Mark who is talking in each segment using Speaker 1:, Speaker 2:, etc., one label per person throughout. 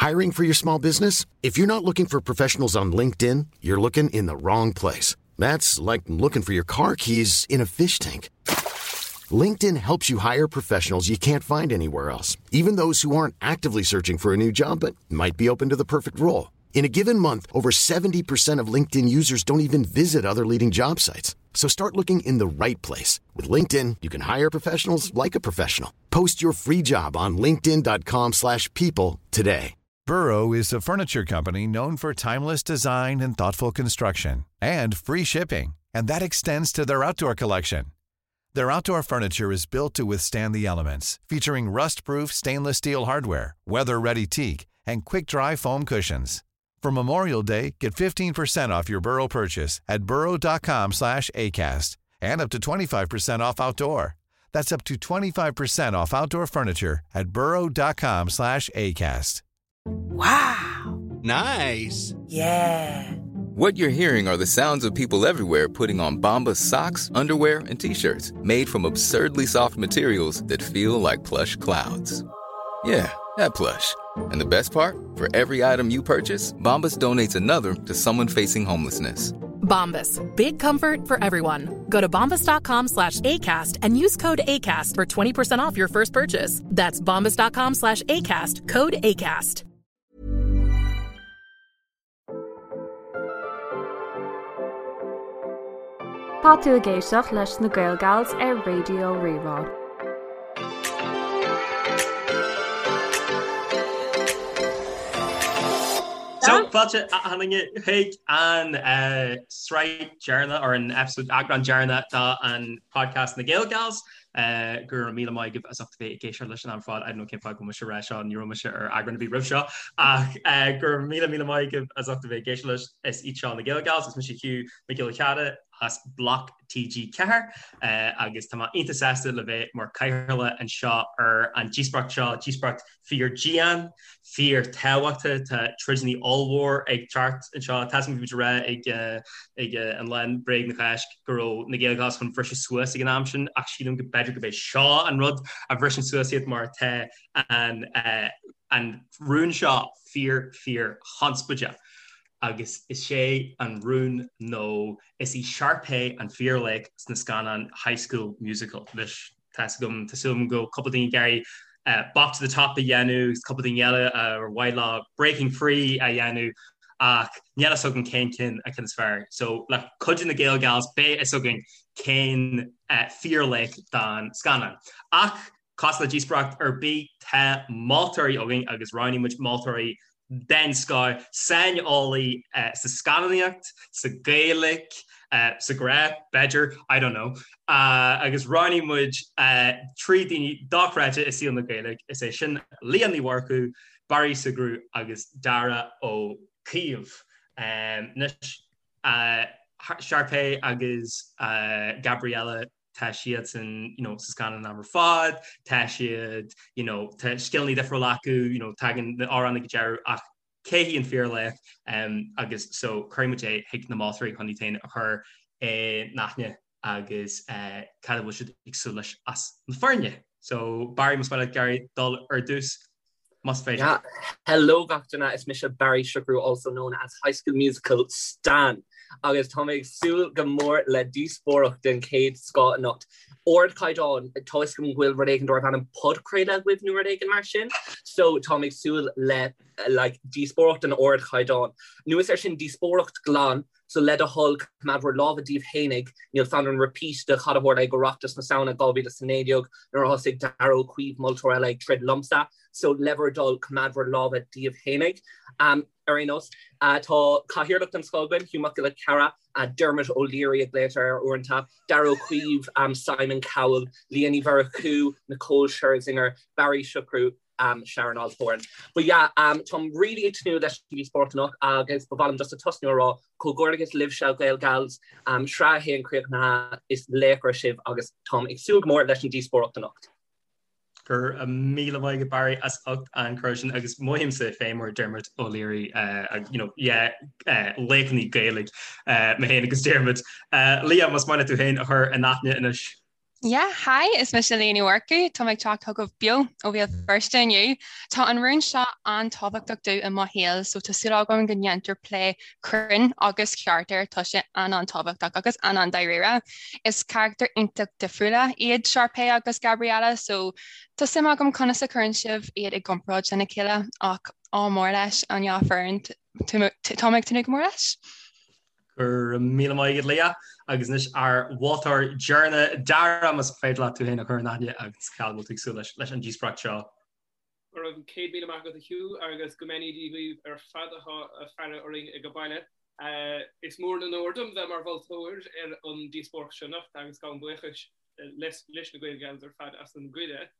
Speaker 1: Hiring for your small business? If you're not looking for professionals on LinkedIn, you're looking in the wrong place. That's like looking for your car keys in a fish tank. LinkedIn helps you hire professionals you can't find anywhere else, even those who aren't actively searching for a new job but might be open to the perfect role. In a given month, over 70% of LinkedIn users don't even visit other leading job sites. So start looking in the right place. With LinkedIn, you can hire professionals like a professional. Post your free job on linkedin.com slash people today.
Speaker 2: Burrow is a furniture company known for timeless design and thoughtful construction and free shipping, and that extends to their outdoor collection. Their outdoor furniture is built to withstand the elements, featuring rust-proof stainless steel hardware, weather-ready teak, and quick-dry foam cushions. For Memorial Day, get 15% off your Burrow purchase at burrow.com slash ACAST and up to 25% off outdoor. That's up to 25% off outdoor furniture at burrow.com slash ACAST.
Speaker 3: Wow.
Speaker 4: Nice.
Speaker 3: Yeah.
Speaker 5: What you're hearing are the sounds of people everywhere putting on Bombas socks, underwear, and t-shirts made from absurdly soft materials that feel like plush clouds. Yeah, that plush. And the best part? For every item you purchase, Bombas donates another to someone facing homelessness.
Speaker 6: Bombas. Big comfort for everyone. Go to bombas.com slash ACAST and use code ACAST for 20% off your first purchase. That's bombas.com slash ACAST. Code ACAST.
Speaker 7: Tá tú ag éisteacht leis na Gael Gals ar Raidió Rí-Rá.
Speaker 8: So, fáilte achan duine chuig an sraith deireanach or an episode eagrán deireanach de an podcast na Gael Gals. Go raibh míle maith agaibh as ucht a bheith ag éisteacht leis an am ar fad. I don't know cén fáth go bhfuil mise ag rá seo, ní raibh mise ar eagrán ar bith roimh seo ach go raibh míle míle maith agaibh as ucht a bheith ag éisteacht leis. Is iad seo na Gael Gals, is mise Hugh Mac Giolla Chearra as Bloc TG4 agus tá mé iontach sásta le bheith mar cathaoirleach anseo ar an díospóireacht seo, díospóireacht fíor dian, fíor tábhachtach, tá troideanna ollmhór ag teacht anseo, tá a fhios agam bhí muid ag rá ag ag an lá Bréag na Cásc go raibh na Gael Gals chun bhriseadh suas ag an am sin ach sílim go b'fhéidir gurb é seo an rud a bhriseann suas iad mar tá an an rún seo fíor fíor chonspóideach. Agus is é an rún nó is í Sharpay an fíorlaoch sna scannáin High School Musical. Anois, tá 'fhios agam, tá súil agam go bhfuil cúpla daoine ag iarraidh Bop to the Top a dhéanamh agus cúpla daoine eile ar mhaith leo Breaking Free a dhéanamh ach níl fhios agam cén cinn an ceann is fearr. So, le cuidiú na Gael Gals beidh fhios againn cén fíorlaoch don scannán. Ach Cosúil le díospóireacht ar bith, tá moltóirí againn agus roghnaigh muid moltóirí den scoth, saineolaí sa scannánaíocht, sa Ghaeilge, sa ghrá, b'fhéidir, I don't know, agus roghnaigh muid 3 daoine dochreidte i saol na Gaeilge, is é sin Liadh Ní Mhurchú, Barry Sugrue agus Darragh Ó Caoimh. Anois, Sharpay agus Gabriella tá siadsan you know sa scannán an am ar fad, tá siad you know tá scileanna difriúla acu, you know tagann na amhráin ag an deireadh ach cé hí an fíorlaoch um, agus so cuirfidh muid é chuig na moltóirí chun iad féin a chur in aithne agus uh, cad a bhfuil siad ag súil leis as na foirne. So Barry más maith leat Gary dul ar dtús. Más féidir.
Speaker 9: Yeah. Hello gach duine, is mise Barry Sugrue, also known as High School Musical Stan, agus tá mé ag súil go mór le díospóireacht den chéad scoth anocht. Ardchaighdeán, tá fhios agam go bhfuil rud éigin darb ainm podchraoladh agaibh nó rud éigin mar sin, so tá mé ag súil le like díospóireacht den ardchaighdeán. Anuas air sin díospóireacht glan, So le do thoil, coimeád bhur lámha díbh fhéinig, níl fonn orm repeat de cad a tharla ag Oireachtas na Samhna 2019 nuair a thosaigh Darragh Ó Caoimh, moltóir eile, ag troid liomsa. So le bhur dtoil, coimeád bhur lámha díbh fhéinig. Ar aon nós, tá cathaoirleach den scoth againn, Hugh Mac Giolla Chearra, Dermot O'Leary a ghlaotar air uaireanta, Darragh Ó Caoimh, Simon Cowell, Liadh Ní Mhurchú, Nicole Scherzinger, Barry Sugrue, Sharon Osbourne. But yeah, táim really ag tnúth leis an díospóireacht anocht agus ba mhaith liom just a tosnú a rá comhghairdeachas libhse Gael Gals, sraith a haon críochnaithe, is laochra sibh agus táim ag súil go mór leis an díospóireacht anocht.
Speaker 8: Go raibh míle maith agat Barry as ucht an cuireadh sin agus mothaímse féin mar Dermot O'Leary you know, yeah, laochraí Gaeilge mé féin agus Dermot. Liadh, más maith leat tú féin a chur in aithne anois.
Speaker 4: Yeah, hi, is mise Leah Ní Mhurchú, tá mé ag teacht chugaibh beo ó Bhéal Feirste inniu. Tá an rún seo an-tábhachtach domh i mo shaol, so tá súil agam go ndéantar plé cruinn agus ceart air, tá sé an-an-tábhachtach agus an-an-dáiríre. Is carachtair iontach difriúla iad Sharpay agus Gabriella, so tá suim agam conas a chuireann sibh iad i gcomparáid lena chéile, ach ádh mór leis an dhá foireann, tá mé ag tnúth go mór leis.
Speaker 8: Go raibh míle maith agat Leah agus anois ár mholtóir deireanach Dara más féidir leat tú féin a chur in aithne agus cá bhfuil tú ag súil leis leis an díospóireacht seo.
Speaker 10: Go raibh 100,000 maith agat a Hugh agus go mbeannaí Dia dhaoibh ar fad atá ag faire orainn ag baile. Is mór an onóir dom bheith mar mholtóir ar an díospóireacht seo anocht agus gabhaim buíochas leis na Gael Gals ar fad as an gcuireadh.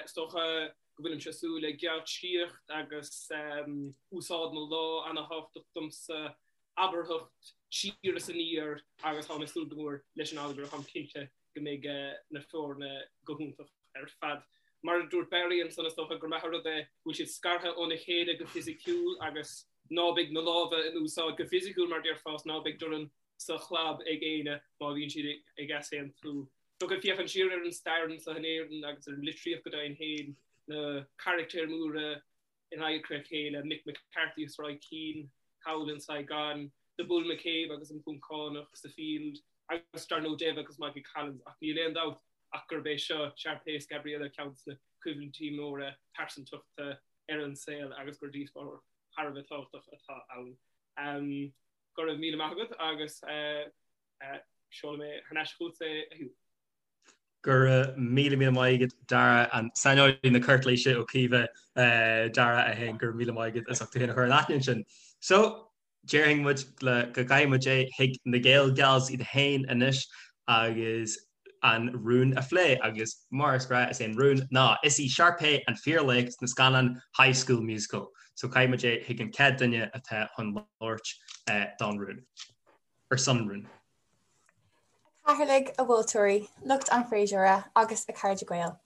Speaker 10: Is dócha go bhfuilimse ag súil le geáitsíocht agus úsáid na lámh ana-thábhachtach domsa, abarthacht siar is aniar agus táim ag súil go mór leis an allagar, táim cinnte go mbeidh na foirne go hiontach ar fad. Mar a dúirt Barry ansan, is dócha gur maith an rud é go bhfuil siad scartha óna chéile go fisiciúil agus ná beidh na lámha in úsáid go fisiciúil mar déarfá, ná beidh dorn sa chlab ag éinne má bhíonn siad ag easaontú. Dócha féachaint siar ar an stair anseo in Éirinn agus ar an litríocht go deimhin féin, na carachtair mhóra in adharca a chéile, Mick McCarthy is Roy Keane thall in Saigon, The Bull McCabe agus an Poncánach sa Field agus dar ndóigh Dev agus Michael Collins ach níl aon dabht ach gurb é seo Sharpay is Gabriella ceann de na coimhlintí móra pearsantachta ar an saol agus gur díospóireacht thar a bheith tábhachtach atá ann. Go raibh míle maith agat agus seolfaidh mé thar n-ais chugat é a Hugh.
Speaker 8: Go raibh míle míle maith agat Dara, an saineolaí na cúirtléise ó Caoimhe Dara é féin, go raibh míle maith agat as ucht tú féin a chur in aithne ansin. So, déarfainn muid le go gcaithfidh muid é chuig na Gael Gals iad féin anois agus an rún a phlé agus mar is gnáth is é an rún ná is í Sharpay an fíorlaoch sna scannáin High School Musical. So caithfidh muid é chuig an chéad duine atá chun labhairt don rún. Ar son an rúin.
Speaker 11: A chathaoirligh, a mholtóirí, lucht an fhreasúra agus a chairde Gael.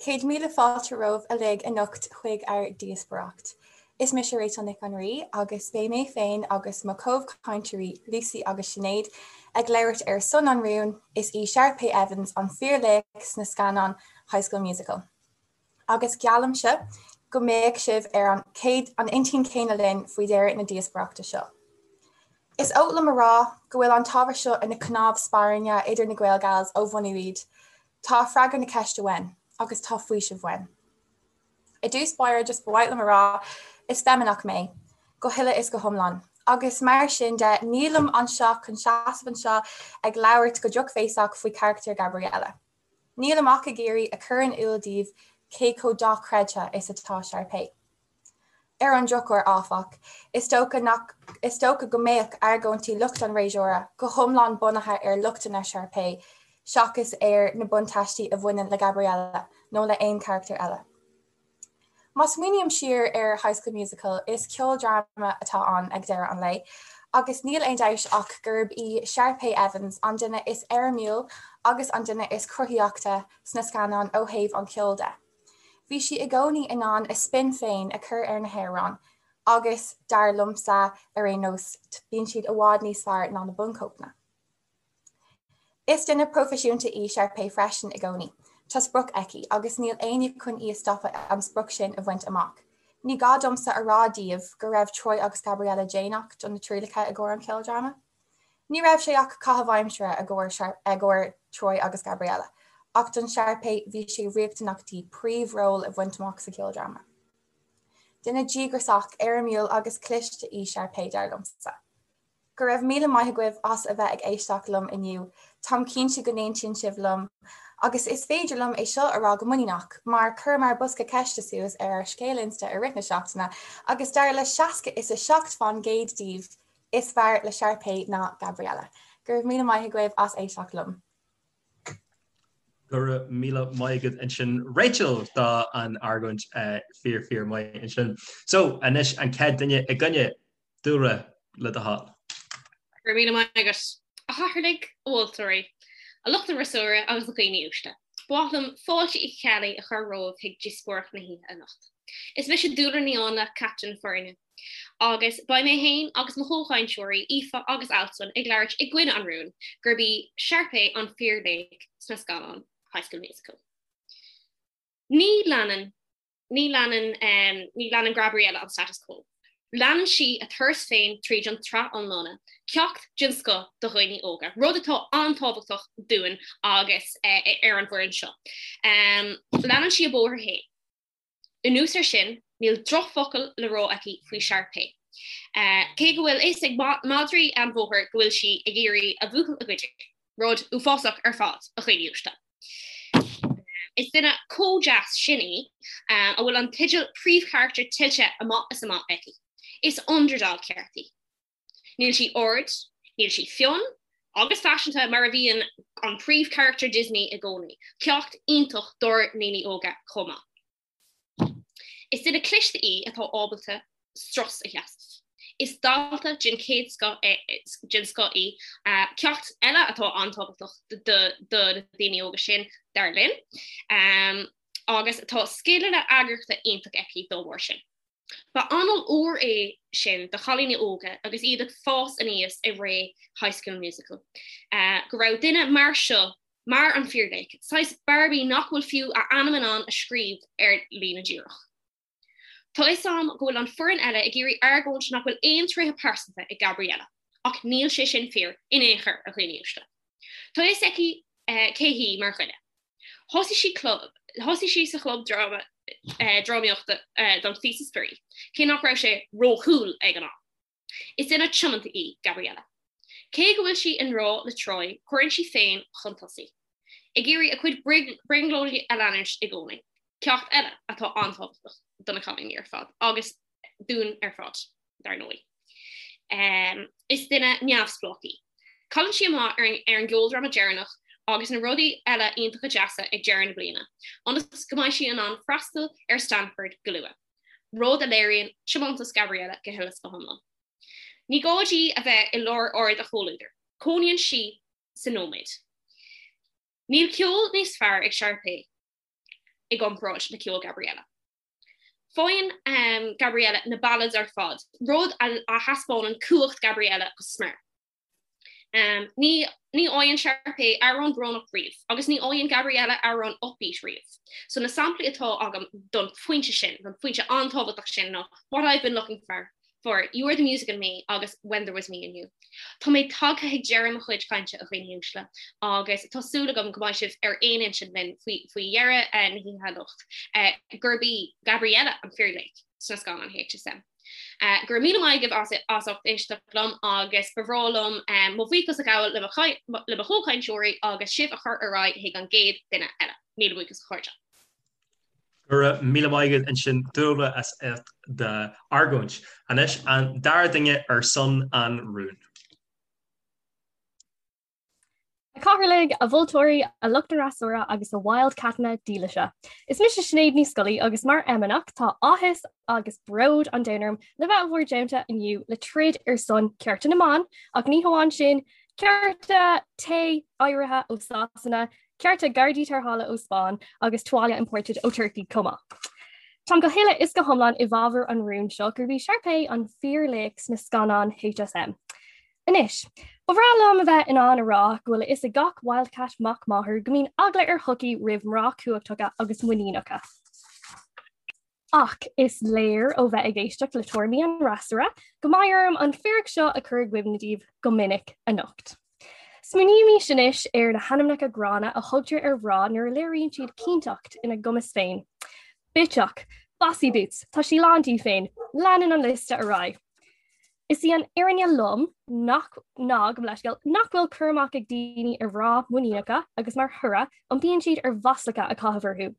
Speaker 11: 100,000 fáilte romhaibh uilig anocht chuig ár díospóireacht. Is mise Rachel Nic an Rí agus beidh mé féin agus mo chomhchainteoirí Lucy agus Sinéad ag labhairt ar son an rúin, is í Sharpay Evans an fíorlaoch sna scannáin High School Musical. Agus geallaimse go mbeidh sibh ar an chéad an intinn chéanna linn faoi dheireadh na díospóireachta seo. Is oth liom a rá go bhfuil an t-ábhar seo ina chnámh spairne idir na Gael Gals ó bhunú iad. Tá freagra na ceiste uainn, agus tá faoiseamh uainn. I dtús báire just ba mhaith liom a rá, is feimineach mé, go huile is go hiomlán, agus mar sin de nílim anseo chun seasamh anseo ag labhairt go drochbhéasach faoi charachtar Gabriella. Nílim ach ag iarraidh a chur in iúl daoibh cé chomh dochreidte is atá Sharpay. Ar an drochuair, áfach, is dócha nach is dócha go mbeadh argóintí lucht an fhreasúra go hiomlán bunaithe ar lochtanna Sharpay seachas ar na buntáistí a bhaineann le Gabriella nó le haon charachtar eile. Má smaoiním siar ar High School Musical, is ceoldráma atá ann ag deireadh an lae, agus níl aon dabht ach gurb í Sharpay Evans an duine is éirimiúil agus an duine is cruthaíochta sna scannáin ó thaobh an cheoil de. Bhí sí i gcónaí in ann a spin féin a chur ar na hamhráin agus, dar liomsa ar aon nós, bíonn siad i bhfad níos fearr ná na bunchóipeanna. Is duine proifisiúnta í Sharpay freisin i gcónaí. Tá sprioc aici, agus níl éinne chun í a stopadh an sprioc sin a bhaint amach. Ní gá domsa a rá daoibh go raibh Troy agus Gabriella déanach do na trialacha i gcomhair an cheoldráma. Ní raibh sé ach caitheamh aimsire i gcomhair Troy agus Gabriella, ach don Sharpay bhí sé riachtanach di príomhról a bhaint amach sa cheoldráma. Duine díograiseach, éirimiúil agus cliste í Sharpay, dar liomsa. Go raibh míle maith agaibh as a bheith ag éisteacht liom inniu. Táim cinnte go n-aontaíonn sibh liom. Agus is féidir liom é seo a rá go muiníneach, mar chuireamar bosca ceiste suas ar ár scéal Insta i rith na seachtaine agus dar le 60 is 7 fán gcéad díobh, is fearr le Sharpay ná Gabriella. Go raibh míle maith agaibh as éisteacht liom.
Speaker 8: Go raibh míle maith agat ansin Rachel do an argóint fíor fíor maith ansin. So anois an chéad duine i gcoinne Dúlra, le do thoil.
Speaker 12: Go raibh míle maith agat. A chathaoirligh, a mholtóirí, a lucht an fhreasúra agus a dhaoine uaisle. Ba mhaith liom fáilte Uí Cheallaigh a chur romhaibh chuig díospóireacht na hoíche anocht. Is mise Dúlra Ní Áinle, captaen na foirne. Agus beidh mé féin agus mo chomhchainteoirí Aoife agus Alswyn ag labhairt i gcoinne an rúin gurb í Sharpay an fíorlaoch sna scannáin. High School Musical. Ní leanann ní leanann ní leanann Gabriella an status quo. Leanann sí a turas féin tríd an tsraith iomlána, ceacht den scoth do dhaoine óga, rud atá an-tábhachtach dúinn agus ar an bhfoireann seo. Leanann sí a bóthar féin. Anuas air sin, níl drochfhocal le rá aici faoi Sharpay. Cé go bhfuil fhios ag madraí an bhóthair go bhfuil sí ag iarraidh a bhuachaill a ghoid, rud uafásach ar fad, a dhaoine uaisle. Is duine chomh deas sin í, a bhfuil an teideal príomhcharachtar tuillte amach is amach aici. Is underdog ceart í. Níl sí ard, níl sí fionn agus faiseanta mar a bhíonn an príomhcharachtar Disney i gcónaí. Ceacht iontach dár ndaoine óga chomh maith. Is duine cliste í atá ábalta strus a sheasamh. Is dalta den chéad scoth den scoth í, ceacht eile atá an-tábhachtach do na daoine óga sin, dar linn, agus tá scileanna eagraíochta iontach aici dá bharr sin. Ba anáil úr é sin do chailíní óga agus iad ag fás aníos i ré High School Musical, go raibh duine mar seo mar an fíorlaoch, saghas Barbie nach bhfuil fiú a ainm in ann a scríobh ar líne díreach. Tá fhios a'm go bhfuil an foireann eile ag iarraidh argóint nach bhfuil aon tréithe pearsanta ag Gabriella, ach níl sé sin fíor in aon chor, a dhaoine uaisle. Tá fhios aici cé hí mar dhuine. Thosaigh sí club, thosaigh sí sa chlub dráma, drámaíochta don phíosa spraoi, cé nach raibh sé ró-cool ag an am. Is duine tiomanta í Gabriella. Cé go bhfuil sí i ngrá le Troy, cuireann sí féin chun tosaigh. Ag iarraidh a cuid brionglóidí a leanúint i gcónaí. Ceacht eile atá an-tábhachtach do na cailíní ar fad, agus dúinn ar fad, dar ndóigh. Is duine neamhspleách í. Cailleann sí amach ar an gceoldráma deireanach agus na rudaí eile iontacha deasa ag deireadh na bliana, ionas go mbeidh sí in ann freastal ar Stanford go luath. rud a léiríonn tiomantas Gabriella go huile is go hiomlán. Ní gá di a bheith i lár aird a chomhluadair, cónaíonn sí sa nóiméad. Níl ceol níos fearr ag Sharpay i gcomparáid le ceol Gabriella. Faigheann Gabriella na ballads ar fad, rud a thaispeánann cumhacht Gabriella go smior. Ní ní fhaigheann Sharpay amhrán brónach riamh agus ní fhaigheann Gabriella amhrán upbeat riamh. So na samplaí atá agam don phointe sin, don phointe an-tábhachtach sin ná What I've Been Looking For, for You Are the Music in Me agus When There Was Me and You. Tá mé tagtha ag deireadh mo chuid cainte a dhaoine uaisle agus tá súil agam go mbeidh sibh ar aon intinn linn faoi faoi dheireadh na hoíche anocht gurb í Gabriella an fíorlaoch sna scannáin HSM. Go raibh míle maith agaibh as ucht éisteacht liom agus ba bhreá liom mo bhuíochas a ghabháil le mo chomhchainteoirí agus sibh a chur ar aghaidh chuig an gcéad duine eile. Míle buíochas a chairde.
Speaker 8: Go raibh míle maith agat ansin Dúlra as ucht d'argóint. Anois an dara duine ar son an rúin.
Speaker 7: A Chathaoirligh, a mholtóirí, a lucht an fhreasúra agus a wildcatanna dílise. Is mise Sinéad Ní Scolaí agus mar fheimineach tá áthas agus bród an domhain orm le bheith i bhur dteannta inniu le troid ar son cearta na mban ach ní hamháin sin, cearta tae áirithe ó Sasana, cearta gardaí tarrthála ó Spáinn agus tuáille imported ó Turkey chomh maith. Táim go huile is go hiomlán i bhfabhar an rúin seo gurb í Sharpay an fíorlaoch sna scannáin HSM. Anois, ba bhreá liom a bheith in ann a rá go bhfuil a fhios ag gach wildcat mac máthar go mbíonn eagla ar shochaí roimh mná cumhachtacha agus muiníneacha. Ach is léir ó bheith ag éisteacht le tuairimí an fhreasúra go mbeidh orm an fíric seo a chur i gcuimhne daoibh go minic anocht. Smaoinímis anois ar na hainmneacha gránna a thugtar ar mhná nuair a léiríonn siad cinnteacht ina gcumas féin. Bitseach, Bossy Boots, tá sí lán di féin, leanann an liosta ar aghaidh. Is í an fhírinne lom nach ná gabh mo leithscéal nach bhfuil cur amach ag daoine ar mhná muiníneacha agus mar thoradh iompaíonn siad ar mhaslacha a chaitheamh orthu.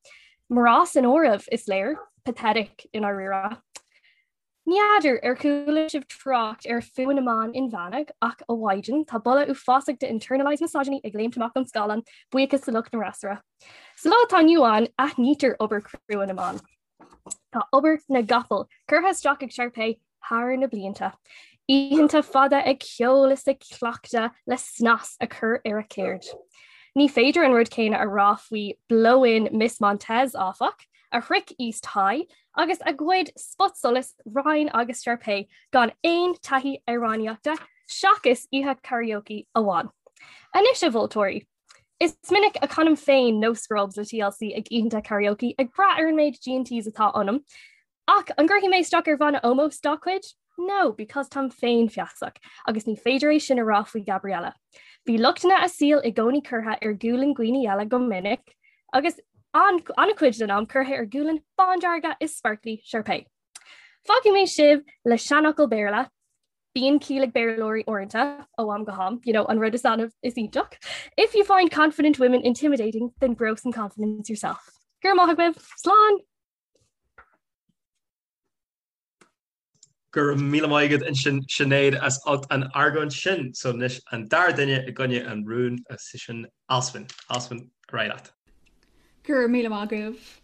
Speaker 7: Mná san áireamh, is léir. Pathetic i ndáiríre. Ní fheadar ar chuala sibh trácht ar fuath na mban inmheánach ach a mhaighdean, tá boladh uafásach de internalized misogyny ag léimt amach ón scáileán, buíochas do lucht an fhreasúra. Sa lá atá inniu ann, aithnítear obair chrua na mban. Tá obair na gcapall curtha isteach ag Sharpay thar na blianta. Oícheanta fada ag ceol is ag cleachtadh le snas a chur ar a ceird. Ní féidir an rud céanna a rá faoi blow-in Miss Montez, áfach, a shroich East High agus a ghoid spotsolas Ryan agus Sharpay gan aon taithí amhránaíochta seachas oíche karaoke amháin. Anois a mholtóirí! Is minic a chanaim féin No Scrubs le TLC ag oícheanta karaoke ag brath ar an méid G&Ts atá ionam. Ach an gcuirfidh mé isteach ar bhanna ómóis dá cuid? No, because táim féinfheasach, agus ní féidir é sin a rá faoi Gabriella. Bhí lochtanna a saoil i gcónaí curtha ar ghualainn dhaoine eile go minic, agus an-chuid den am curtha ar ghualainn bándearga is sparkly Sharpay. Fágfaidh mé sibh le seanfhocal Béarla, Bíonn ciall ag Béarlóirí uaireanta, ó am go ham, you know, an rud is annamh is iontach. If you find confident women intimidating, then grow some confidence yourself. Go raibh maith agaibh, slán!
Speaker 8: Go raibh míle maith agat ansin Sinéad as ucht an argóint sin. So anois an dara duine i gcoinne an rúin is í sin Alswyn. Alswyn, ar aghaidh leat.
Speaker 13: Go raibh míle maith agaibh.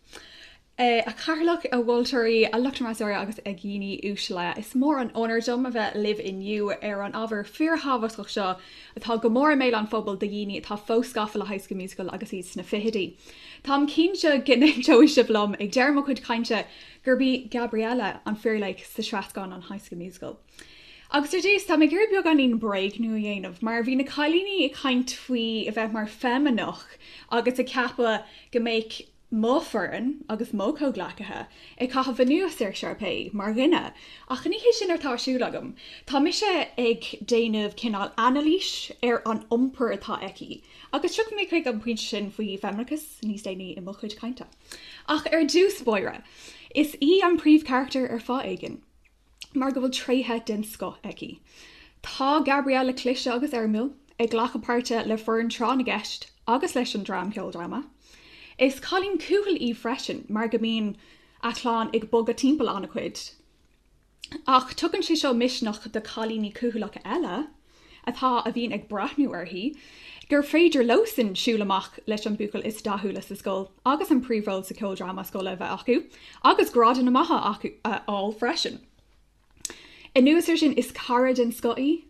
Speaker 13: A Chathaoirleach, a mholtóirí, a lucht an fhreasúra agus a dhaoine uaisle. Is mór an onóir dom a bheith libh inniu ar an ábhar fíorthábhachtach seo atá go mór i mbéal an phobail do dhaoine atá fós gafa le High School Musical agus iad sna fichidí. Táim cinnte go n-aontóidh sibh liom ag deireadh mo chuid cainte gurb í Gabriella an fíorlaoch sa sraith scannán High School Musical. Agus ar dtús, tá mé ag iarraidh beagáinín bréagnú a dhéanamh, mar bhí na cailíní ag caint faoi a bheith mar feimineach agus ag ceapadh go mbeadh mo foireann agus mo chomhghleacaithe ag caitheamh anuas ar Sharpay mar dhuine, ach ní hé sin atá ar siúl agam. Tá mise ag déanamh cineál anailís ar an iompar atá aici, agus tiocfaidh mé chuig an bpointe sin faoi feimineachas níos déanaí i mo chuid cainte. Ach ar dtús báire, is í an príomhcharachtar ar fáth éigin. mar go bhfuil tréithe den scoth aici. Tá Gabriella cliste agus éirimiúil, ag glacadh páirte le foireann tráth na gceist agus leis an dream ceoldráma. Is cailín cúthail í freisin mar go mbíonn a clann ag bogadh timpeall an-chuid. Ach tugann sé seo misneach do chailíní cúthaileacha eile atá a bhíonn ag breathnú uirthi, gur féidir leosan siúl amach leis an buachaill is dathúla sa scoil agus an príomhról sa cheoldráma scoile a bheith acu, agus grádanna maithe acu a fháil freisin. Anuas air sin, is cara den scoth í,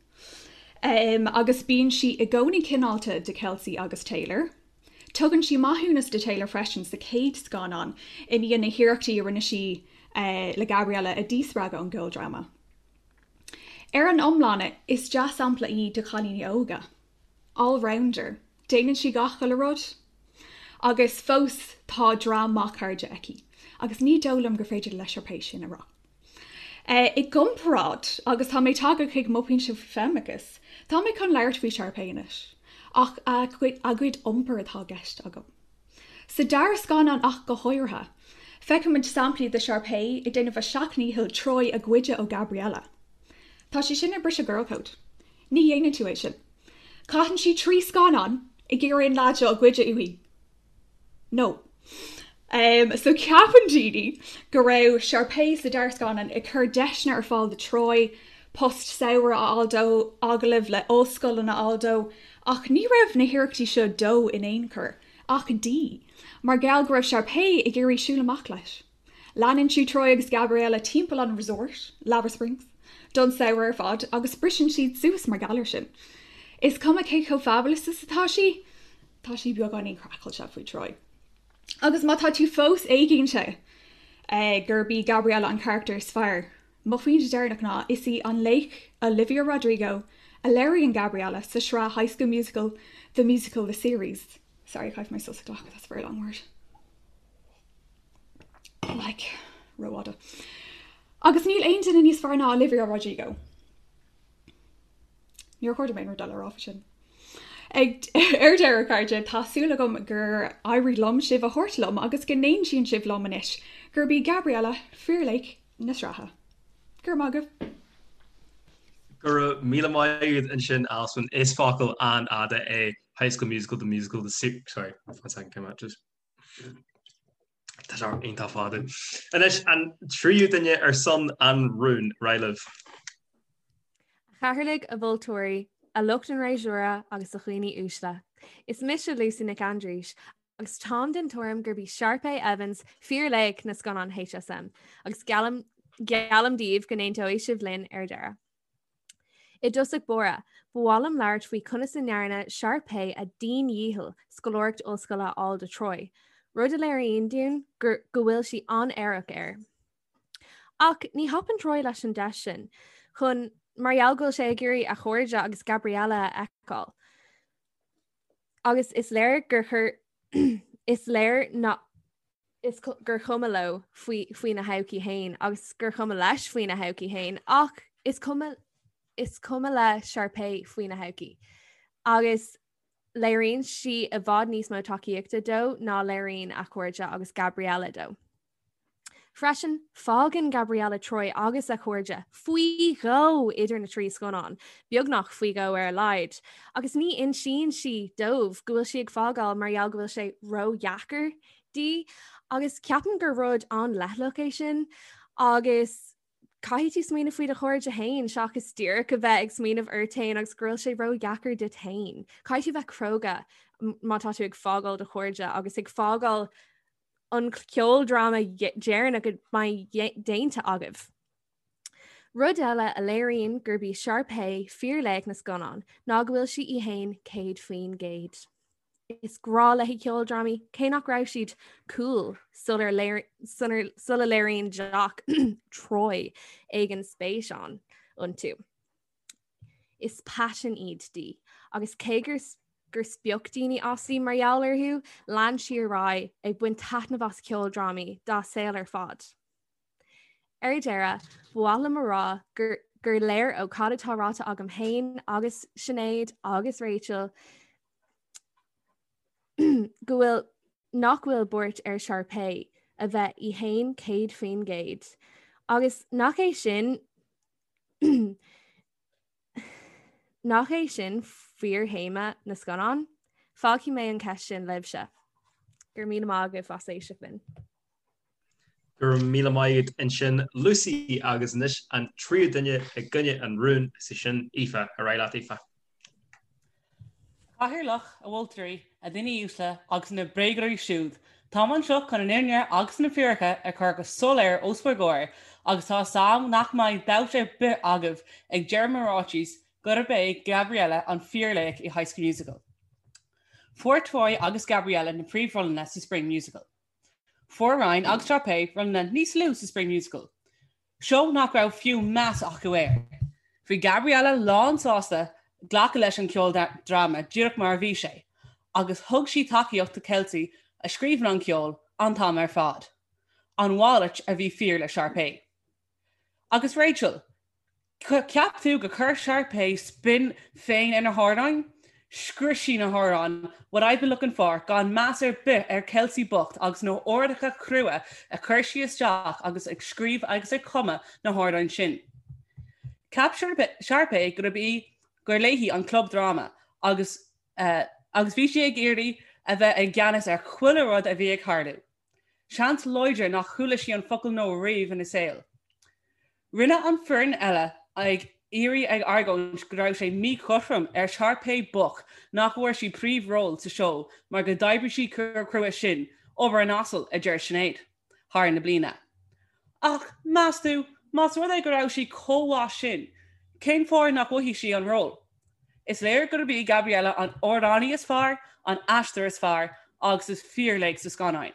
Speaker 13: agus bíonn sí i gcónaí cineálta do Kelsey agus Taylor. Tugann sí maithiúnas do Taylor freisin sa chéad scannán i ndiaidh na hiarrachtaí a rinne sí le Gabriella a dhíspreagadh ón gceoldráma. Ar an iomlán, is dea-sampla í do chailíní óga. All-rounder. Déanann sí gach uile rud. Agus fós tá dream maith cairde aici. Agus ní dóigh liom gur féidir le Sharpay sin a rá. I gcomparáid, agus tá mé tagtha chuig mo phointe faoi feimineachas, tá mé chun labhairt faoi Sharpay anois. Ach a cuid iompair atá i gceist agam. Sa dara scannán ach go háirithe, feicimid samplaí de Sharpay ag déanamh a seacht ndícheall Troy a ghoideadh ó Gabriella. Tá sé sin ag briseadh girl code. Ní dhéanann tú é sin. Caitheann sí 3 scannán ag iarraidh an leaid seo a ghoideadh uaithi. No. Um, so ceapann daoine go raibh Sharpay sa dara scannán ag cur deiseanna ar fáil do Troy, post samhraidh a fháil dó, agallaimh le ollscoileanna a fháil dó, ach ní raibh na hiarrachtaí seo dó in aon chor, ach di, mar gheall go raibh Sharpay ag iarraidh siúl amach leis. Leanann sí Troy agus Gabriella timpeall an resort, Lava Springs, don samhradh ar fad agus briseann siad suas mar gheall air sin. Is cuma cé chomh fabulous is atá sí, tá sí beagáinín craiceáilte faoi Troy. Agus má tá tú fós éiginnte gurb í Gabriella an carachtar is fearr, Mo phointe deireanach ná, is í an laoch Olivia Rodrigo a léiríonn Gabriella sa sraith High School Musical, The Musical, The Series. Sorry, caithfidh mé sos a ghlacadh, that's a very long word. Like, rófhada. Agus níl aon duine níos fearr ná Olivia Rodrigo. Níor chóir dom aon rud eile a rá faoi sin. Ag ar deireadh, a chairde, tá súil agam gur éirigh liom sibh a thabhairt liom agus go n-aontaíonn sibh liom anois gurb í Gabriella fíorlaoch na sraithe. Go raibh maith agaibh.
Speaker 8: Go raibh míle maith agat ansin Alswyn. Is focal an-fhada é High School Musical, The Musical, The Series, sorry, one second, came out just Tá sé iontach fada. Anois an tríú duine ar son an rúin, ar aghaidh libh.
Speaker 14: A chathaoirligh, a mholtóirí, a lucht an fhreasúra agus a dhaoine uaisle. Is mise Lucy Nic Aindrís agus táim den tuairim gurb í Sharpay Evans fíorlaoch na scannán HSM agus geallaim geallaim daoibh go n-aontóidh sibh linn ar deireadh. I dtosach báire, ba mhaith liom labhairt faoi conas a ndearna Sharpay a dian-dhícheall scoláireacht ollscoile a fháil do Troy, rud a léiríonn dúinn gur go bhfuil sí an-aireach air. Ach ní thapann Troy leis an deis sin, chun mar gheall go bhfuil sé ag iarraidh a chairde agus Gabriella a fheiceáil. Agus is léir gur chuir is léir ná is gur chuma leo faoi faoina thodhchaí féin agus gur chuma leis faoina thodhchaí féin ach is cuma is cuma le Sharpay faoina thodhchaí. Agus léiríonn sí i bhfad níos mó tacaíochta dó ná léiríonn a chairde agus Gabriella dó. Freisin, fágann Gabriella Troy agus a chairde faoi dhó idir na 3 scannán, beagnach faoi dhó ar a laghad, agus ní insíonn sí dóibh go bhfuil sí ag fágáil mar gheall go bhfuil sé ródheacair di, agus ceapaim gur rud an-leithleach é sin, agus caithfidh tú smaoineamh faoi do chairde féin seachas díreach a bheith ag smaoineamh ort féin agus go bhfuil sé ródheacair duit féin. Caithfidh tú bheith cróga má tá tú ag fágáil do chairde agus ag fágáil an ceoldráma deireanach a mbeidh déanta agaibh. Rud eile a léiríonn gurb í Sharpay fíorlaoch na scannán ná go bhfuil sí í féin 100%. Is grá léi ceoldrámaí, cé nach raibh siad cool sula léiríonn jock Troy éigin spéis ann iontu. Is paisean iad di, agus cé gur gur spioc daoine aisti mar gheall orthu, lean sí ar aghaidh ag baint taitneamh as ceoldrámaí dá saol ar fad. Ar deireadh, ba mhaith liom a rá gur gur léir ó cad atá ráite agam féin agus Sinéad agus Rachel go bhfuil nach bhfuil buairt ar Sharpay a bheith í féin 100% agus nach é sin nach é sin fíorthéama na scannán? Fágfaidh mé an cheist sin libhse. Go raibh míle maith agaibh as éisteacht linn.
Speaker 8: Go raibh míle maith agat ansin Lucy agus anois an tríú duine i gcoinne an rúin, is í sin Aoife. Ar aghaidh leat Aoife.
Speaker 15: A Chathaoirleach, a mholtóirí, a dhaoine uaisle agus na bréagóirí siúd, táim anseo chun an fhírinne agus na fíricí a chur go soiléir os bhur gcomhair agus tá 'fhios a'm nach mbeidh dabht ar bith agaibh ag deireadh mo ráitis gurb é Gabriella an fíorlaoch i High School Musical. Fuair Troy agus Gabriella na príomhrólanna sa Spring Musical. Fuair Ryan agus Sharpay rólanna níos lú sa Spring Musical, seó nach raibh fiú meas acu air. Bhí Gabriella lán sásta glacadh leis an ceoldráma díreach mar a bhí sé, agus thug sí tacaíocht do Kelsey a scríobhann an ceol an t-am ar fad. An mhalairt a bhí fíor le Sharpay. Agus Rachel, Cheap tú gur chuir Sharpay spin féin ar na hamhráin? Scrios sí na hamhráin What I've Been Looking For gan meas ar bith ar Kelsey bocht agus na horduithe crua a chuir sí isteach agus ag scríobh agus ag cumadh na hamhráin sin. Cheap Sharpay gurb í gur léi an club dráma agus agus bhí sí ag iarraidh a bheith i gceannas ar chuile rud a bhí ag tarlú. Seans láidir nach chuala sí an focal no riamh ina saol. Rinne an foireann eile ag iarraidh ag argóint go raibh sé míchothrom ar Sharpay bocht nach bhfuair sí príomhról sa seó mar go d'oibrigh sí chomh crua sin, obair an asail, a deir Sinéad, thar na bliana. Ach, meas tú, más rud é go raibh sí chomh mhaith sin, cén fáth nach bhfaighidh sí an ról? Is léir gurb í Gabriella an amhránaí is fearr, an aisteoir is fearr agus is fíorlaoch sa scannáin.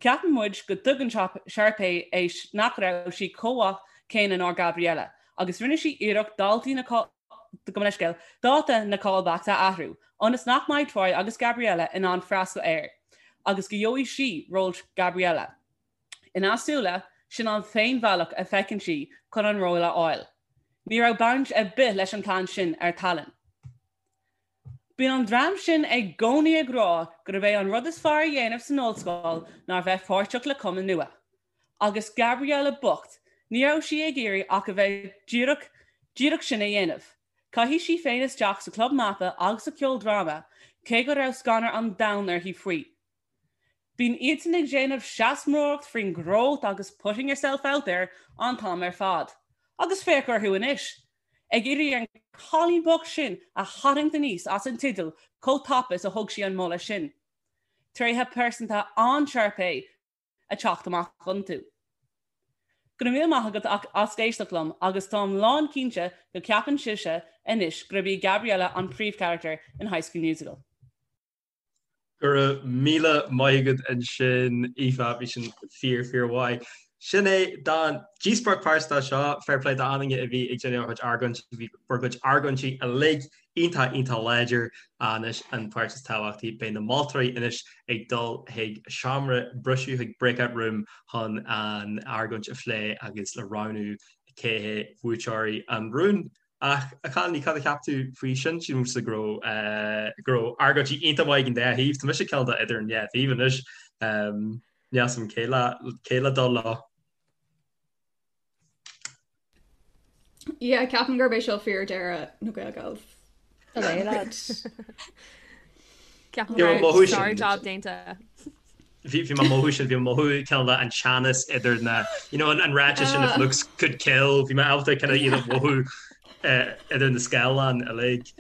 Speaker 15: Ceapann muid go dtuigeann Sharpay é nach raibh sí chomh maith céanna ná Gabriella agus rinne sí iarracht daltaí na gabh mo leithscéal, dáta na callbacks a athrú ionas nach mbeidh Troy agus Gabriella in ann freastal air agus go gheobhaidh sí ról Gabriella. Ina súile, sin an t-aon bhealach a feiceann sí chun an ról a fháil. Ní raibh baint ar bith leis an plean sin ar tallann. Bíonn an dream sin i gcónaí ag rá gurb é an rud is fearr a dhéanamh san ollscoil ná bheith páirteach le cumann nua. Agus Gabriella bocht, ní raibh sí ag iarraidh ach a bheith díreach, díreach sin a dhéanamh. Chaith sí féin isteach sa chlub mata agus sa cheoldráma, cé go raibh scanradh an domhain uirthi faoi. Bíonn iadsan ag déanamh seasmóireacht faoin growth agus putting yourself out there an t-am ar fad. Agus féach orthu anois! Ag iarraidh an cailín bocht sin a tharraingt aníos as an teideal chomh tapa is a thug sí an moladh sin. Tréithe pearsanta an-Sharpay ag teacht amach iontu. Go raibh míle maith agat as éisteacht liom agus táim lán cinnte go ceapann sibhse anois gurb í Gabriella an príomhcharachtar in High School Musical.
Speaker 8: Go raibh míle maith agat ansin, Aoife, bhí sin fíor, fíor mhaith. Sin é don díospóireacht pearsanta seo, fair play d'achan duine a bhí ag déanamh a chuid argóint, bhí bhur gcuid argóintí uilig iontach iontach láidir. Anois an pháirt is tábhachtaí, beidh na moltóirí anois ag dul chuig seomra briseadh, chuig breakout room chun an argóint a phlé agus le roghnú cé hé buaiteoirí an rúin. Ach a chailíní, cad a cheap tú faoi sin? Sílimse go raibh go raibh argóintí iontach maith ag an dá thaobh. Tá mise cineál de idir an dhá thaobh anois. Níl 'fhios a'm cé le cé le dul leo.
Speaker 13: Yeah, ceapaim gurb é seo fíor-deireadh na Gaelgals.
Speaker 14: Hello, lad. Ceapaim go raibh sár-job déanta.
Speaker 8: Bhí mé ag mothú sin, bhí mé ag mothú cineál de an teannas idir na, you know, an ráiteas sin if looks could kill, bhí mé ábalta kind of iad a mhothú idir na scáileáin uilig.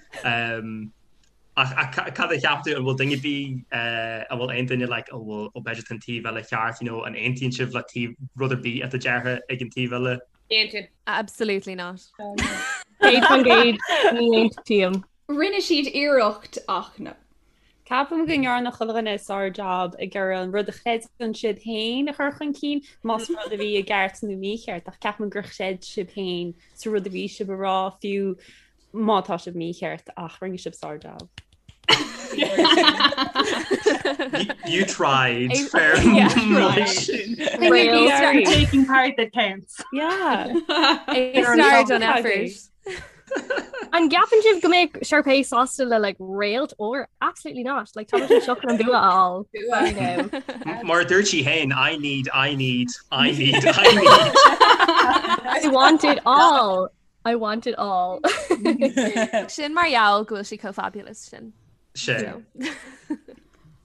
Speaker 8: Ach cad a cheap tú, an bhfuil duine ar bith, an bhfuil aon duine like, an bhfuil, ó b'fhéidir tá an taobh eile ceart, you know, an aontaíonn sibh le taobh, rud ar bith atá deirthe ag an taobh eile?
Speaker 12: Aontaím.
Speaker 14: Absolutely not.
Speaker 7: 100% ní aontaím.
Speaker 13: Rinne siad iarracht ach no.
Speaker 16: Ceapaim go ndearna chuile dhuine sár-jab ag iarraidh an rud a chreideann siad féin a chur chun cinn, más rud a bhí i gceart nó mícheart, ach ceapaim gur chreid sibh féin sa rud a bhí sibh a rá, fiú má tá sibh mícheart, ach rinne sibh sár-jab.
Speaker 8: You tried, fair
Speaker 17: Taking part that counts.
Speaker 16: Yeah.
Speaker 14: A star done effort.
Speaker 7: An gceapann sibh go mbeadh Sharpay sásta le like réalt or absolutely not like tá sí anseo chun an bua a fháil. I
Speaker 8: know. Mar a dúirt sí féin, I need, I need, I need, I need.
Speaker 7: I want it all. I want it all.
Speaker 14: Sin mar gheall go bhfuil sí chomh fabulous sin.
Speaker 8: Sin.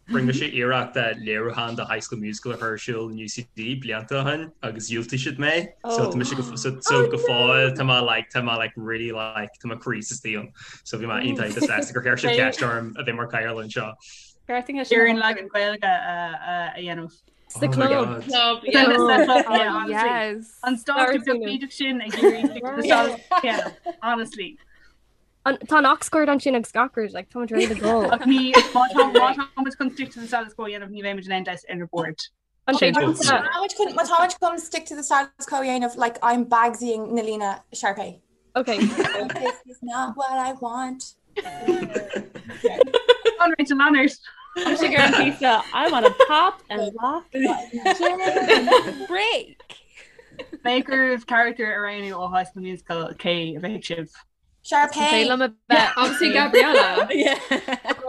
Speaker 8: Rinne mise iarracht léiriúchán de High School Musical a chur ar siúl in UCD blianta ó shin agus dhiúltaigh siad mé. So tá mise go so so go fóill tá mé like tá mé like really like tá mo chroí istigh ann. So bhí mé iontach iontach sásta gur chuir siad ceist orm a bheith mar cathaoirleach anseo.
Speaker 17: Ar an leagan Gaeilge a dhéanamh.
Speaker 7: Sa club.
Speaker 12: Club,
Speaker 17: yeah.
Speaker 14: Yes.
Speaker 17: An stáitse beag sin ag iarraidh honestly.
Speaker 7: Tá an aux cord ansin agus gach rud, like, táimid ready to go.
Speaker 17: Ach ní má tá má táimid chun stick to the status quo a dhéanamh ní bheimid in aon deis ar an board.
Speaker 7: An
Speaker 11: Má táimid chun má táimid chun stick to the status quo a dhéanamh, like, I'm Bagsying na líne Sharpay.
Speaker 7: Okay.
Speaker 11: This is not what I want.
Speaker 17: An Rachel Manners.
Speaker 16: Tá sé gur an píosa I want to pop and lock
Speaker 14: Break.
Speaker 17: Maker of character a roghnú ó High School Musical cé a bheadh sibh.
Speaker 11: Sharpay.
Speaker 14: Liom a bheith
Speaker 13: Obviously Gabriella.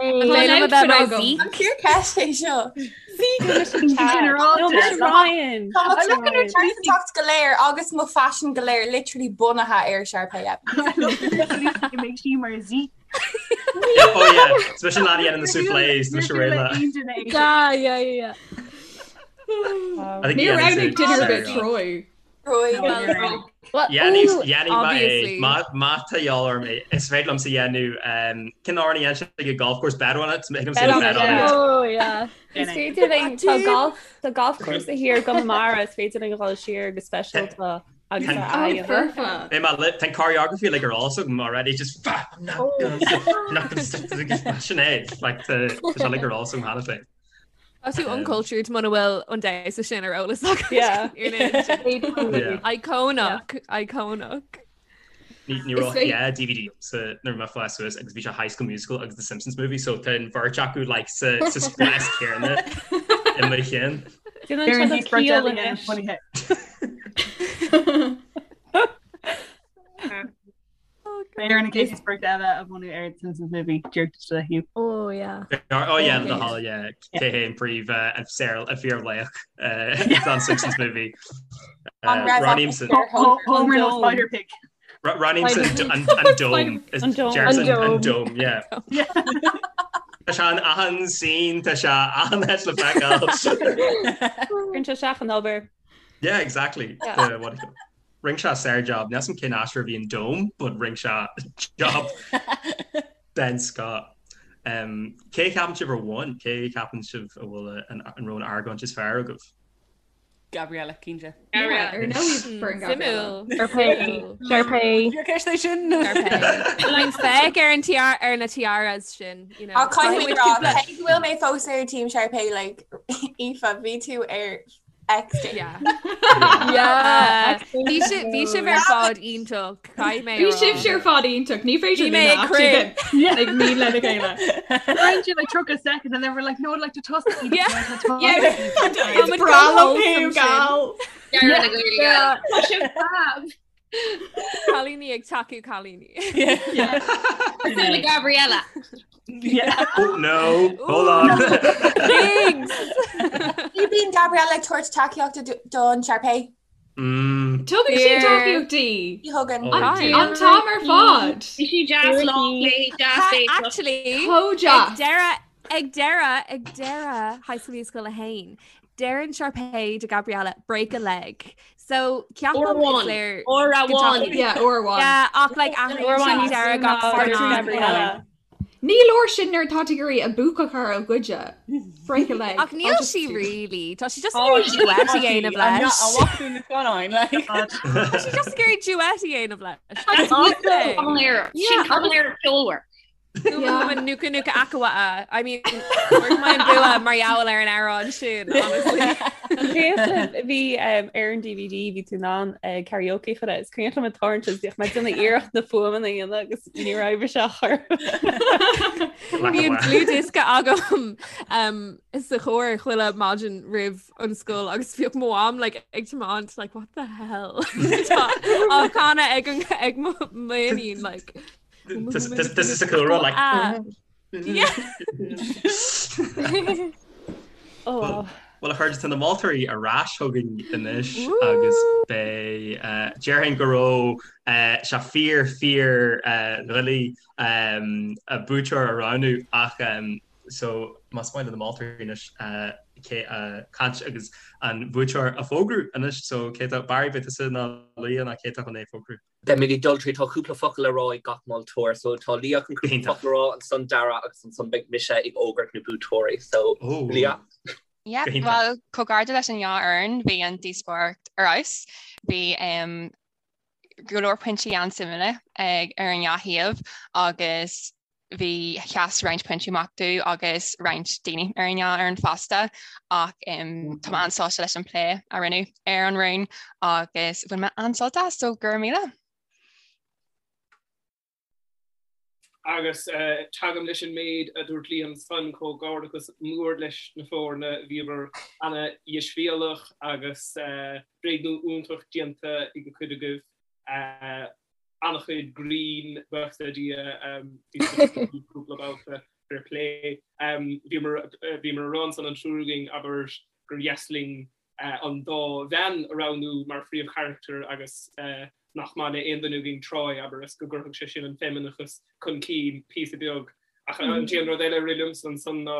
Speaker 14: Liom a bheith mar Zeke.
Speaker 11: An fíorcheist é seo.
Speaker 16: No, Mise Ryan.
Speaker 11: Tá mo pearsantacht go léir agus mo faisean go léir literally bunaithe ar Sharpay Evans.
Speaker 17: Make sí mar Zeke.
Speaker 8: Oh yeah, Is mise an lad a dhéanann na soufflés, tá mise réidh le.
Speaker 7: Yeah, yeah, yeah.
Speaker 8: I think
Speaker 13: Ní
Speaker 8: yeah,
Speaker 13: roghnaigh duine ar bith Troy.
Speaker 8: Dhéanfaidh má tá de dhíobháil orm é. Is féidir liomsa dhéanamh cén amhrán a dhéanann sé ag golf course Bet on it thig liomsa dhéanamh Bet on it.
Speaker 7: Oh yeah.
Speaker 16: Is féidir linn tá golf tá golf course thiar i gConamara is féidir linn dhul siar go speisialta agus a aghaidh.
Speaker 13: Foirfe.
Speaker 8: Beidh mé le tá an choreography like ar eolas agam already just I'm not gonna not gonna sin é like tá sé like ar eolas agam cheana féin.
Speaker 14: Tá tú uncultured muna bhfuil an damhsa sin ar eolas agat.
Speaker 16: Yeah.
Speaker 14: Iconic, iconic.
Speaker 8: Ní raibh yeah, DVD sa nuair a bhí mé ag fás suas agus bhí sé High School Musical agus The Simpsons movie so tá an bheirt acu like sa sa spás céanna i mo chinn.
Speaker 16: Déanann sé do ciall anois.
Speaker 17: Beidh ar na chéad sprioc eile a bhunú ar The Simpsons Movie díreach le Hugh.
Speaker 7: Oh yeah.
Speaker 8: Oh yeah, the hall yeah. Cé hé an príomh an saor an fíorlaoch don Simpsons Movie. Roghnaímse
Speaker 17: Homer nó Spider Pig.
Speaker 8: Roghnaímse an dome Jerson an dome yeah. Tá sé in achan scene tá sé achan áit le feiceáil.
Speaker 16: Cuireann sé isteach an obair.
Speaker 8: Yeah, exactly. What do you Rinne sé sár-jab, níl 'fhios a'm cén aisteoir a bhí an Dome, but rinne sé job den scoth. Um, cé a cheapann sibh a bhain? Cé a cheapann sibh a bhfuil an raibh an argóint is fearr agaibh?
Speaker 15: Gabriella, cinnte.
Speaker 13: Gabriella. Ar ndóigh foireann Gabriella.
Speaker 7: Sharpay. Sharpay.
Speaker 15: Fíorcheist é sin.
Speaker 14: Bíonn feic ar an tiara ar na tiaras sin, you know.
Speaker 11: Ach caithfidh mé rá, cé go bhfuil mé fós ar team Sharpay, like, Aoife, bhí tú ar. X
Speaker 14: Yeah. Yeah. Bhí sibh bhí sibh ar fad iontach, caithfidh mé a
Speaker 13: Bhí
Speaker 14: rá.
Speaker 13: sibhse ar fad iontach, ní féidir
Speaker 14: Bhí mé ag crith.
Speaker 13: ag ní lena chéile.
Speaker 17: Weren't you like took a second and then we're like no I'd like to toss it.
Speaker 14: Yeah.
Speaker 13: Yeah.
Speaker 14: Tá
Speaker 13: Is breá liom thú, gal.
Speaker 12: Yeah. Tá sibh fab.
Speaker 14: Cailíní ag tacú cailíní.
Speaker 12: Cosúil le Gabriella.
Speaker 8: Oh no, hold on.
Speaker 14: Thanks.
Speaker 11: Ní bíonn Gabriella ag tabhairt tacaíochta don Sharpay.
Speaker 8: Mm.
Speaker 13: Tugann sí tacaíocht di.
Speaker 11: Ní thugann.
Speaker 13: An t-am ar fad.
Speaker 12: Bhí sí deas lá léi deas é.
Speaker 14: Actually,
Speaker 13: Chomh
Speaker 14: ag
Speaker 13: deas.
Speaker 14: deireadh ag deireadh ag deireadh High School Musical 1, Deireann Sharpay do Gabriella break a leg. So
Speaker 12: Uair
Speaker 14: ceapaim is
Speaker 12: amháin.
Speaker 14: léir
Speaker 12: Uair
Speaker 14: go
Speaker 12: amháin.
Speaker 14: dtacaíonn-
Speaker 13: Yeah, uair amháin.
Speaker 14: Yeah, ach like
Speaker 12: Uair
Speaker 14: athraíonn
Speaker 12: amháin
Speaker 14: sí deireadh gach
Speaker 16: Níos
Speaker 14: scannán.
Speaker 16: Gabriella.
Speaker 13: Ní leor sin nuair atá tú ag iarraidh a buac a chur ó goide. Break a leg.
Speaker 14: Ach níl
Speaker 13: I'll just
Speaker 14: sí
Speaker 13: do-
Speaker 14: really. Tá sí just
Speaker 15: Tá
Speaker 14: ag iarraidh
Speaker 15: sí-
Speaker 14: duet
Speaker 15: tá
Speaker 14: a
Speaker 15: sí.
Speaker 14: dhéanamh
Speaker 15: I'm not-
Speaker 14: leis.
Speaker 15: a bhfaca tú na scannáin, like.
Speaker 14: Tá sí just ag iarraidh duet a dhéanamh leis.
Speaker 12: That's
Speaker 14: That's the thing.
Speaker 12: Sin cavalera ceolmhar.
Speaker 14: Yeah. Nuka nuka akawa. I mean, fuair mé an bua mar gheall ar an amhrán sin, honestly.
Speaker 16: Cuimhin bhí ar an DVD bhí tú in ann karaoke a chur air. Is cuimhin liom ag tarraingt is bhíodh mé ag déanamh iarracht na fuaimeanna a dhéanamh agus ní raibh sé a chur.
Speaker 14: Bhí an dlúthdhiosca agam um, sa charr chuile maidin roimh an scoil agus bhíodh mo mham like, ag tiomáint like, what the hell Tá á chanadh ag an ag mo m'iníon like
Speaker 8: This is a cool rud like
Speaker 14: Ah. Yeah.
Speaker 16: Oh, wow.
Speaker 8: Well a chairde tá na moltóirí ar ais chugainn anois agus beidh eh, déarfainn go raibh eh, sé fíor fíor eh, doiligh em, a buaiteoir a roghnú ach em, so más maith le na moltóirí anois eh, cé a caint agus an buaiteoir a fógrú anois so cé tá Barry beidh tusa nó Leah nó cé tá chun é a fógrú.
Speaker 9: Beimid ag dul tríd, tá cúpla focal le rá ag gach moltóir, so tá Leah chun cúpla focal a rá, ansan Dara agus ansan beidh mise ag fógairt na buaiteoirí, so Leah.
Speaker 4: Yeah, bhuel, comhghairdeas leis an dhá fhoireann, bhí an díospóireacht ar fheabhas. Bhí go leor pointí an-suimiúla ag ar an dhá thaobh agus bhí sheas roinnt pointí amach domh agus roinnt daoine ar an dhá fhoireann fosta ach tá mé an-sásta leis an plé a rinneadh ar an rún agus bhain mé an-sult as, so go raibh míle.
Speaker 10: Agus tagaim leis an méid a dúirt Liam ansan, comhghairdeachas mór leis na foirne, bhíobhair ana-dheisbhéalach agus bréagnú iontach déanta ag an chuid agaibh. an-chuid grinn, buíochas le Dia, bhí cúpla babhta fair play. Bhíomar bhíomar a rá ansan an triúr againn, abair, gur dheas linn an dá bhean a roghnú mar phríomhcharachtair agus nach maith le aon duine againn Troy, abair, is go gcuirfeadh sé sin an feimineachas chun cinn píosa beag. Ach an t-aon rud eile a rith liomsa ansan ná,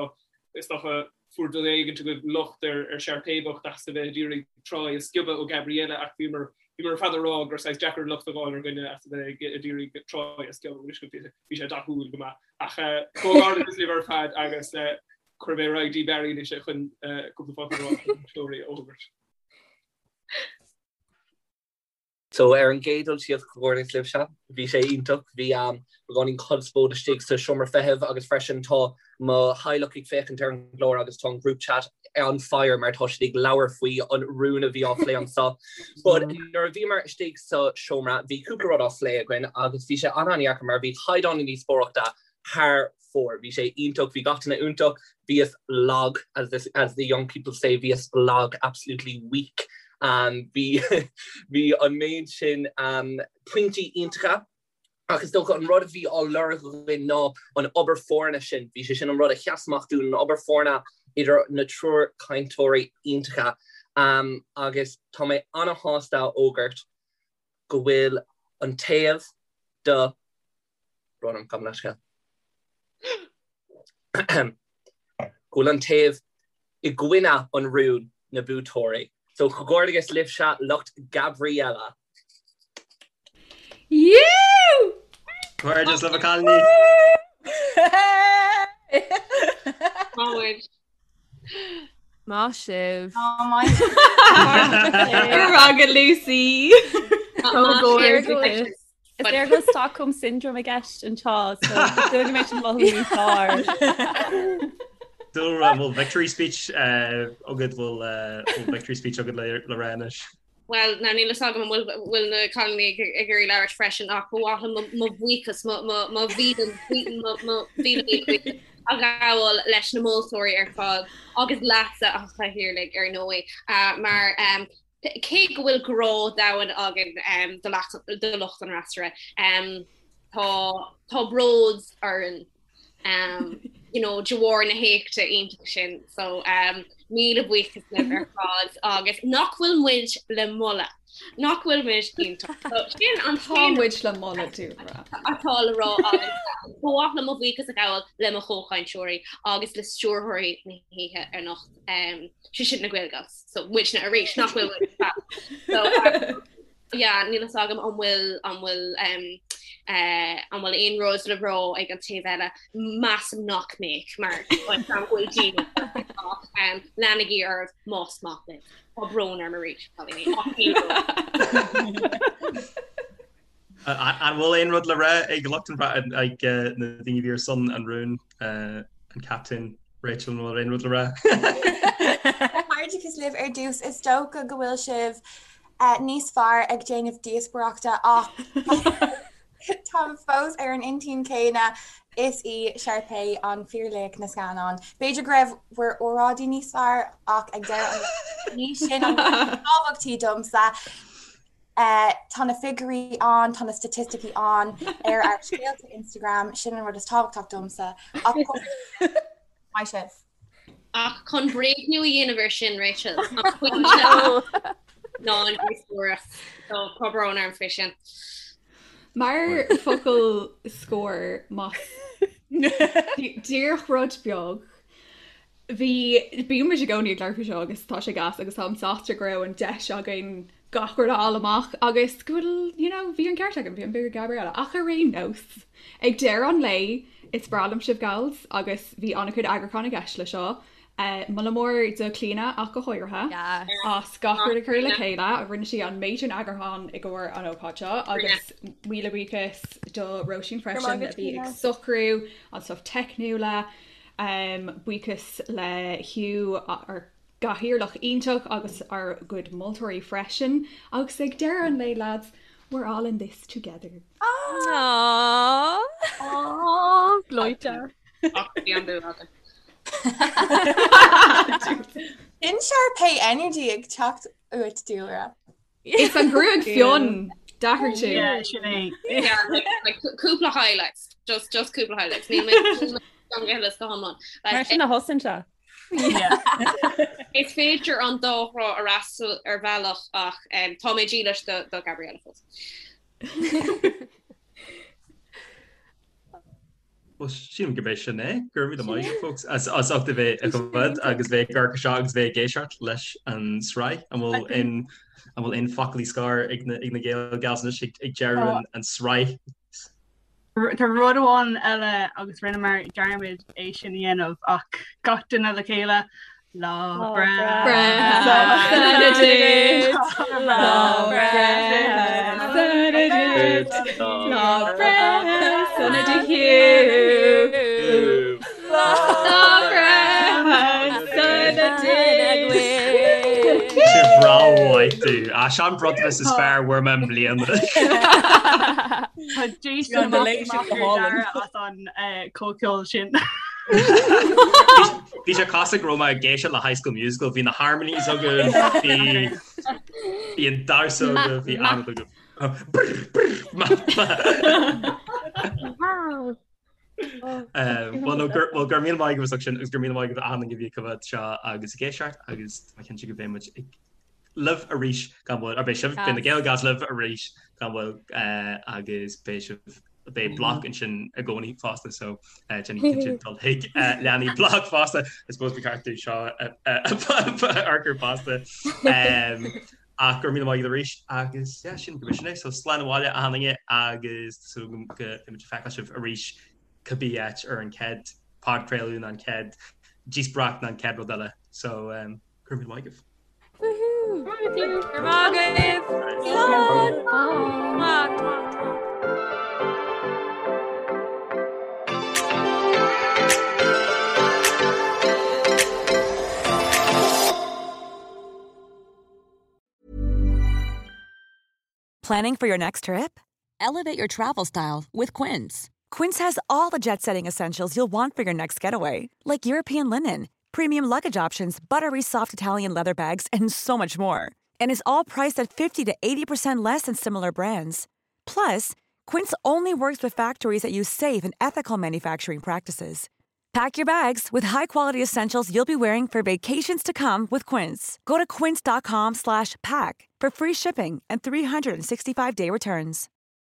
Speaker 10: is dócha, fuair duine éigin agaibh locht ar ar Sharpay bocht as a bheith ag iarraidh Troy a sciobadh ó Gabriella ach bhíomar bhíomar ar fad ag rá gur saghas deacair locht a fháil ar dhuine as a bheith ag iarraidh Troy a sciobadh bhí bhí sé dathúil go maith. Ach comhghairdeachas libh ar fad agus cuirfidh mé ar aghaidh dtí Barry anois chun cúpla focal a rá na buaiteoirí a fhógairt.
Speaker 9: So ar an gcéad dul síos, comhghairdeas libhse, bhí sé iontach, bhí beagáinín conspóid istigh sa seomra feithimh agus freisin tá mo theaghlach ag féachaint ar an gclár agus tá an group chat on fire mar tá siad ag labhairt faoi an rún a bhí á phlé anseo. But nuair a bhíomar istigh sa seomra bhí cúpla rud á phlé againn agus bhí sé an-an-dheacair mar bhí caighdeán na díospóireachta thar fóir. Bhí sé iontach, bhí gach duine iontach, bhíos lag, as the, as the young people say, bhíos lag, absolutely weak. Um, bhí, bhí an méid sin um, pointí iontacha, ach is dócha an rud a bhí á lorg againn ná an obair foirne sin. Bhí sé sin an rud a sheas amach dúinn, an obair foirne idir na triúr cainteoirí iontacha. Um, agus tá mé ana-shásta a fhógairt go bhfuil an taobh do Brón orm, gabh mo leithscéal. Go bhfuil an taobh i gcoinne an rúin na buaiteoirí. So comhghairdeas libhse lucht Gabriella.
Speaker 13: Yú!
Speaker 8: Comhghairdeas libh a chailíní!
Speaker 12: Maith.
Speaker 14: Maith sibh.
Speaker 13: Go raibh maith agat Lucy.
Speaker 16: Comhghairdeas. Is léir go bhfuil Stockholm Syndrome i gceist anseo, so is dóigh go mbeidh sin mothú níos fearr.
Speaker 8: Dúlra, an bhfuil victory speech agat, bhfuil victory speech agat le rá anois?
Speaker 12: Bhuel, now níl fhios agam an bhfuil na cailíní ag iarraidh labhairt freisin ach ba mhaith liom mo bhuíochas, mo mhíle míle buíochas a ghabháil leis na moltóirí ar fad agus leatsa a Chathaoirligh ar ndóigh mar cé go bhfuil grá domhain againn do lucht an fhreasúra, tá bród orainn. um, you know, de bharr na héachta iontach sin so um, míle buíochas libh ar fad agus nach bhfuil muid le moladh nach bhfuil muid iontach. So, sin an
Speaker 13: Tá muid le moladh Dúlra.
Speaker 12: atá le rá agus ba mhaith liom mo bhuíochas a ghabháil le mo chomhchainteoirí agus le stiúrthóirí na hoíche anocht um, sé sin na Gaelgals so muidne arís nach bhfuil muid fab. So, um, Yeah, níl fhios agam an bhfuil an bhfuil um, uh, an bhfuil aon rud le rá ag an taobh eile measaim nach mbeadh mar an bhfuil daoine um, leanaigí oraibh más maith libh. Tá brón orm arís cailíní, ach níl brón.
Speaker 8: An bhfuil aon rud le rá ag lucht an ag na daoine a bhí ar son an rúin an captaen Rachel an bhfuil aon rud le rá?
Speaker 11: Comhghairdeachas libh ar dtús is dócha go bhfuil sibh níos fearr ag déanamh díospóireachta ach táim fós ar an intinn céanna, is í Sharpay an fíorlaoch na scannán. B'fhéidir go raibh bhur óráidí níos fearr ach ag deireadh an lae ní sin an rud is tábhachtaí domsa. Tá na figiúirí ann, tá na staitisticí ann ar ár scéalta Instagram, sin an rud is tábhachtach domsa. Ach maith sibh.
Speaker 12: Ach chun bréagnú a dhéanamh air sin, Rachel, an pointe ná an díospóireacht. So, tá brón orm faoi sin.
Speaker 13: Mar focal scoir, más díreach rud beag, bhí, bíonn muid i gcónaí ag labhairt faoi seo agus tá sé gas agus táim sásta go raibh an deis againn gach rud a fháil amach agus go bhfuil, you know, bhí an ceart agam, bhí an bua ag Gabriella. Ach ar aon nós, ag deireadh an lae, is breá liom sibh gals agus bhí an-chuid eagrúcháin i gceist le seo. Moladh mór do Clíona ach go háirithe as gach rud a chur le chéile, rinne sí an méid sin eagrúcháin i gcomhair an ócáid seo agus míle buíochas do Róisín freisin a bhí ag socrú an stuff teicniúla. Buíochas le Hugh ár gcathaoirleach iontach agus ár gcuid moltóirí freisin. Agus ag deireadh an lae lads, we're all in this together.
Speaker 14: Aww.
Speaker 7: Aww, gleoite.
Speaker 12: Ach bhí an bua agat.
Speaker 11: Sin Sharpay energy ag teacht uait Dúlra.
Speaker 13: Is an ghruaig fionn, d'athraigh tú.
Speaker 17: Yeah, sin é.
Speaker 12: Yeah, like, like, cúpla highlights, just, just cúpla highlights. Níl mé gan go huile is go hiomlán. Like,
Speaker 16: Mar sin a thosaíonn sé.
Speaker 12: Is féidir an dá thrá a fhreastal ar bhealach ach um, tá mé dílis do, do Gabriella fós.
Speaker 8: Well, sílim gurb é sin é, go raibh míle maith agat, folks, as as ucht a bheith ag coimhéad agus bheith ag amharc seo agus bheith ag éisteacht leis an sraith. An bhfuil aon an bhfuil aon foclaí scoir ag na ag na Gael Gals anois ag ag deireadh an an sraith?
Speaker 17: Tá rud amháin eile agus rinneamar dearmad é sin a dhéanamh ach gach duine le chéile Lá breithe
Speaker 13: sona duit, Lá breithe sona duit, Lá breithe sona do Hugh. Lá breithe sona duit.
Speaker 8: Sé breá mhaith tú. Á sin an bronntanas is fearr a fuair mé i mbliana.
Speaker 17: Tá Jason amach ar deireadh as an comhcheol sin.
Speaker 8: Bhí sé cosúil go raibh mé ag éisteacht le High School Musical, bhí na harmonies agaibh, bhí bhí an damhsa agaibh, bhí an agaibh. Well no gur well go raibh míle maith agaibh as ucht sin agus go raibh míle maith agaibh achan duine a bhí ag coimhéad seo agus ag éisteacht agus tá mé cinnte go mbeidh muid ag libh arís gan mhoill, or beidh sibh, beidh na Gael Gals libh arís gan mhoill agus beidh sibh, beidh bloc ansin i gcónaí fosta so déanaigí cinnte dul chuig leanaí bloc fosta, I suppose ba cheart dúinn seo a fhorchur fosta. Ach go raibh míle maith agat arís agus yeah, sin go sin é, so slán abhaile achan duine agus tá súil agam go mbeidh muid ag feiceáil sibh arís cibé áit ar an chéad podchraoladh nó an chéad díospóireacht nó an chéad rud eile so um, Go raibh míle maith agaibh.
Speaker 14: Woohoo! Go raibh maith agaibh! Slán! Mwah!
Speaker 18: Planning for your next trip? Elevate your travel style with Quince. Quince has all the jet setting essentials you'll want for your next getaway, like European linen, premium luggage options, buttery soft Italian leather bags, and so much more. And is all priced at 50 to 80% less than similar brands. Plus, Quince only works with factories that use safe and ethical manufacturing practices. Pack your bags with high-quality essentials you'll be wearing for vacations to come with Quince. Go to quince.com slash pack for free shipping and 365-day returns.